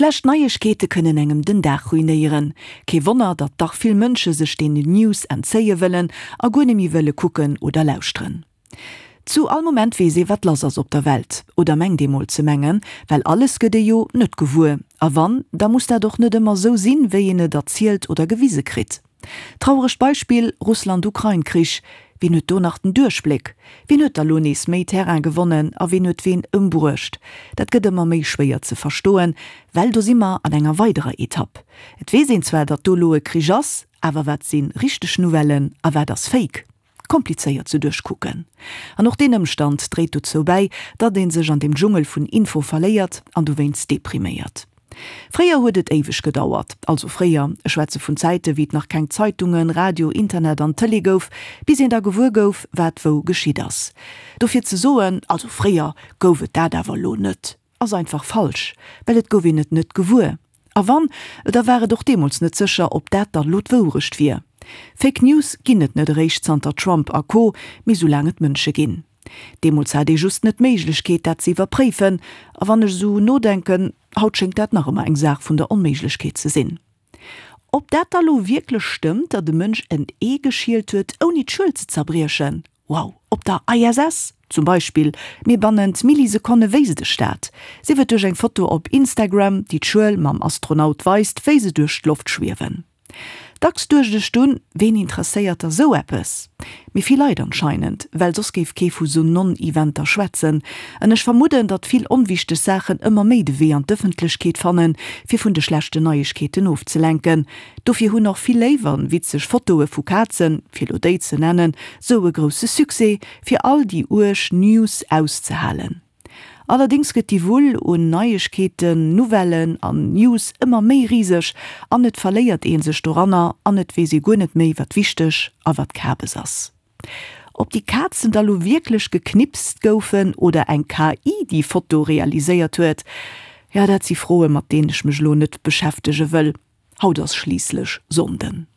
Schlecht Neiegkeete kënnen engem den Dag ruinéieren. Kee Wonner, datt dach vill Mënsche sech deenen News entzéie wëllen a guer net méi wëlle kucken oder lauschteren. Zu all Moment weess ee wat lass ass op der Welt, oder mengt ee mol ze mengen, well alles gëtt ee jo net gewuer. A wann, da muss dat och net ëmmer sou sinn, wéi een et erzielt oder gewise kritt. Trauregt Beispill, Russland-Ukrain-Krich, Wien huet do nach den Duerchbléck? Wien huet da lo nees méi Terrain gewonnen a wien huet ween ëmbruecht? Dat gëtt ëmmer méi schwéier ze verstoen, well do si mer an enger weiderer Etapp. Et weess een zwar, datt do lo e Krich ass, awer wat si richteg Nouvellen a wat ass Fake? Komplizéiert ze duerchkucken. An och deen Ëmstand dréit dozou bäi, datt ee sech an deem Dschungel vun Info verléiert an dowéinst depriméiert. Fréier huet et éiweg gedauert, also fréier, ech schwätze vun Zäite wéi et nach keng Zeitungen, Radio, Internet an Tëlee gouf, bis een da gewuer gouf, wat wou geschitt ass. Dofir ze soen, also fréier gouf et dat awer elo net, ass einfach falsch, well et gouf een et net gewuer. A wann, da war et och deemools net sécher, ob dat dann elo d'Wourecht wier. Fake News ginn et net eréischt zanter Trump a Co, mee soulaang et Mënsche ginn. Deemools hat ee just net d'Méiglechkeet, dat ze iwwerpréifen. A wann ech esou nodenken, haut schéngt dat nach ëmmer eng Saach vun der Onméiglechkeet ze sinn. Ob dat da lo wierklech stëmmt, datt e Mënsch en Ee geschielt huet, ouni d'Schuel ze zerbriechen? Wow, op der ISS zum Beispill, mee bannent Millisekonne wéisst ech dat. Sief et duerch eng Foto op Instagram, déi d'Schuel mam Astronaut weist, wéi se duerch d'Loft schwiewen. Dacks duecht ech dunn, ween interesséiert da sou eppes? Mee vill Leit anscheinend, well soss géif kee vu sou Non-Eventer schwätzen. An ech vermudden, datt vill onwichteg Saachen ëmmer méi de Wee an d'Ëffentlechkeet fannen, fir vun de schlechten Neiegkeeten ofzelenken. Dofir hunn och vill léif an witzeg Fotoe vu Kazen, fir lo déi ze nennen, sou e grousse Succès, fir all déi uerg News auszehalen. Allerdéngs gëtt déi Wull un Neiegkeeten, Nouvellen an News ëmmer méi riseg an et verléiert ee sech doranner an et weess ee guer net méi wat wichteg a wat Kabes ass. Ob déi Kazen da lo wierklech geknipst goufen oder eng KI déi Foto realiséiert huet, jo dat si Froe mat deenen ech mech lo net beschäftege wëll. Haut ass schliisslech Sonnden.